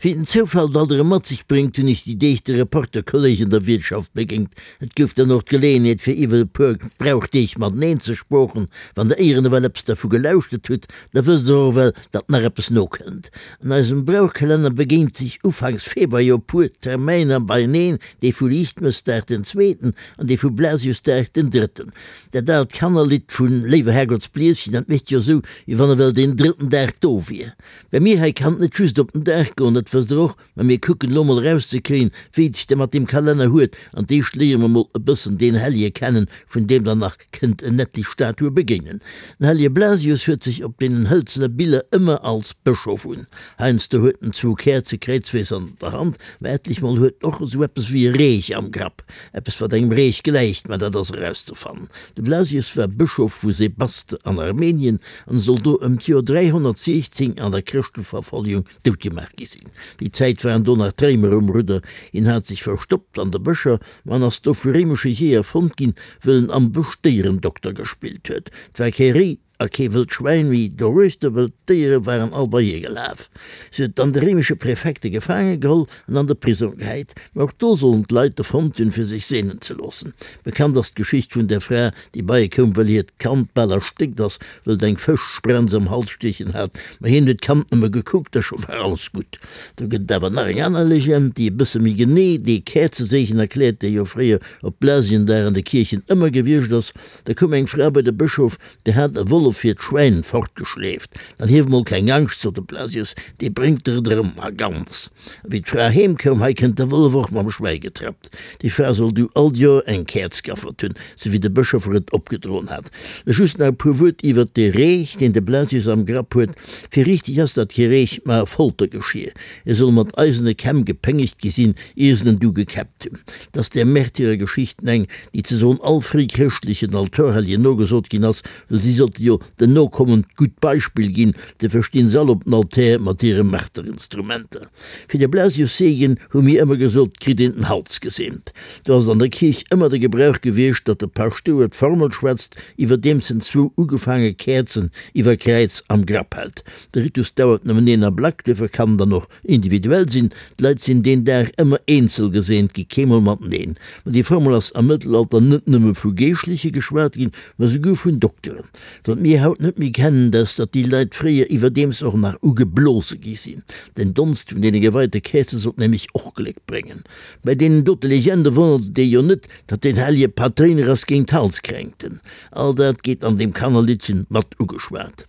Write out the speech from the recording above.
Wéi den Zoufall et alt erëm mat sech bréngt, hunn ech déi Deeg de Reporterkolleg an der Wiertschaft begéint. Et gouf dann och d'Geleeënheet fir iwwer e puer Brauchdeeg mateneen ze sproochen. Wann der éieren ewell eppes dervu gelauschtert hutt, da wësst der och ewell, datt nach eppes nokënnt. An eisem Brauchkalenner begéint sech ufanks Februar jo e puer Termäiner beieneen, dee vu Liichtmëssdag den zweeten an dee vu Blasiusdag den drëtten. Dat aalt Kannerlidd vun Léiwer Herrgottsblieschen, dat mécht jo esou, wéi wann ewell deen drëtten Dag do wier. Bei mir hei kann et net just op den Dag goen, dat wësst der och, mä mir kucken elo mol erauszekréien, wéi et sech da mat deem Kalenner huet, an d'éischt léiere mer mol e bëssen deen Hellje kennen, vun deem der nach kënnt en etlich Statue begéinen. Den Hellje Blasius huet sech op deenen hëlzene Biller ëmmer als Bëschof un. Heiansdo huet en zwou Käerze kräizwees an der Hand, mä etlich mol huet en och esou eppes wéi e Reech am Grapp, eppes wat engem Reech gläicht, mä dat ass erauszefannen. De Blasius war Bëschof vu Sebaste an Armenien an soll do ëm d'Joer 316 an der Chrëschteverfolgung doutgemaach gi sinn. Déi Zäit waren do nach d'Réimer um Rudder. Hien hat sech verstoppt an de Bëscher, ma en ass do vu réimesche Jeeër fonnt ginn, wëll en am Bësch Déierendokter gespillt huet. Et war kee Réi a kee wëllt Schwäin méi doruechter, wëll d'Déiere waren all bei hie gelaf. Si huet dann de réimesche Präfekte gefaange geholl an an de Prisong gehäit. Mä och do sollen d'Leit e fonnt hunn, fir sech seenen ze loossen. Bekannt ass d'Geschicht vun der Fra, déi bei e koum, wëll hiert Kand bal erstéckt ass, wëll et eng Fëschsprenz am Hals stiechen hat. Mä hien huet d'Kand nëmme gekuckt a scho war alles gutt. Do gëtt et awer nach eng aner Legend, déi e bësse méi genee dee Käerzeseegen erkläert, dee jo fréier op Blasiendag an de Kierchen ëmmer gewiescht ass. Da koum eng Fra bei de Bëschof, déi hat e Wollef hiert Schwäin fortgeschleeft. Dann hief mol keng Angscht, sot de Blasius, dee bréngt der et erëm a ganz. A wéi d'Fra heem koum, hei kënnt de Wollef och mam Schwäi getrappt. Déi Fra soll du all d'Joer eng Käerz gaffert hunn, sou wéi de Bëschof er et opgedroen hat. Just nach e puer Wuert iwwert dee Reech, deen de Blasius am Grapp huet. Fir richteg ass dat kee Reech, ma e Foltergeschier. E soll mat eisene Kämm gepéngegt gi sinn, ier se en du gekäppt hunn. 't ass där Märtyrergeschichten eng, déi ze soen all fréichrëschtlechen Altorhelljen nogesot ginn ass, wëll si sollte jo den Nokommen d'gutt Beispill ginn, de verstinn se all op den Altär mat hire Marterinstrumenter. Fir de Blasiusseegen hu mir ëmmer gesot, kritt een den Hals geseent. Do ass et an der Kierch ëmmer de Gebrauch gewiescht, datt de Paschtouer d'Formel schwätzt, iwwerdeems en zwou ugefaange Käerzen iwwer Kräiz am Grapp hält. De Ritus dauert nëmmen een Ablack, duerfir kann en dann och individuell sinn. D'Leit sinn deen Dag ëmmer eenzel geseent gi, keemol mateneen. Ma déi Formel ass am Mëttelalter net nëmme vu Geeschtleche geschwat ginn, ma souguer vun Dokteren. Wat mir haut net méi kennen, dat ass, datt déi Leit fréier iwwerdeems och nach ugeblose gi sinn. Den Donst vun deene geweite Käerze sollt nämlech och Gléck bréngen. Bei deenen dote Legende wonnert et ee jo net, datt den hellege Patréiner ass géint Halskränkten. All dat geet an deem Kannerliddchen mat ugeschwat.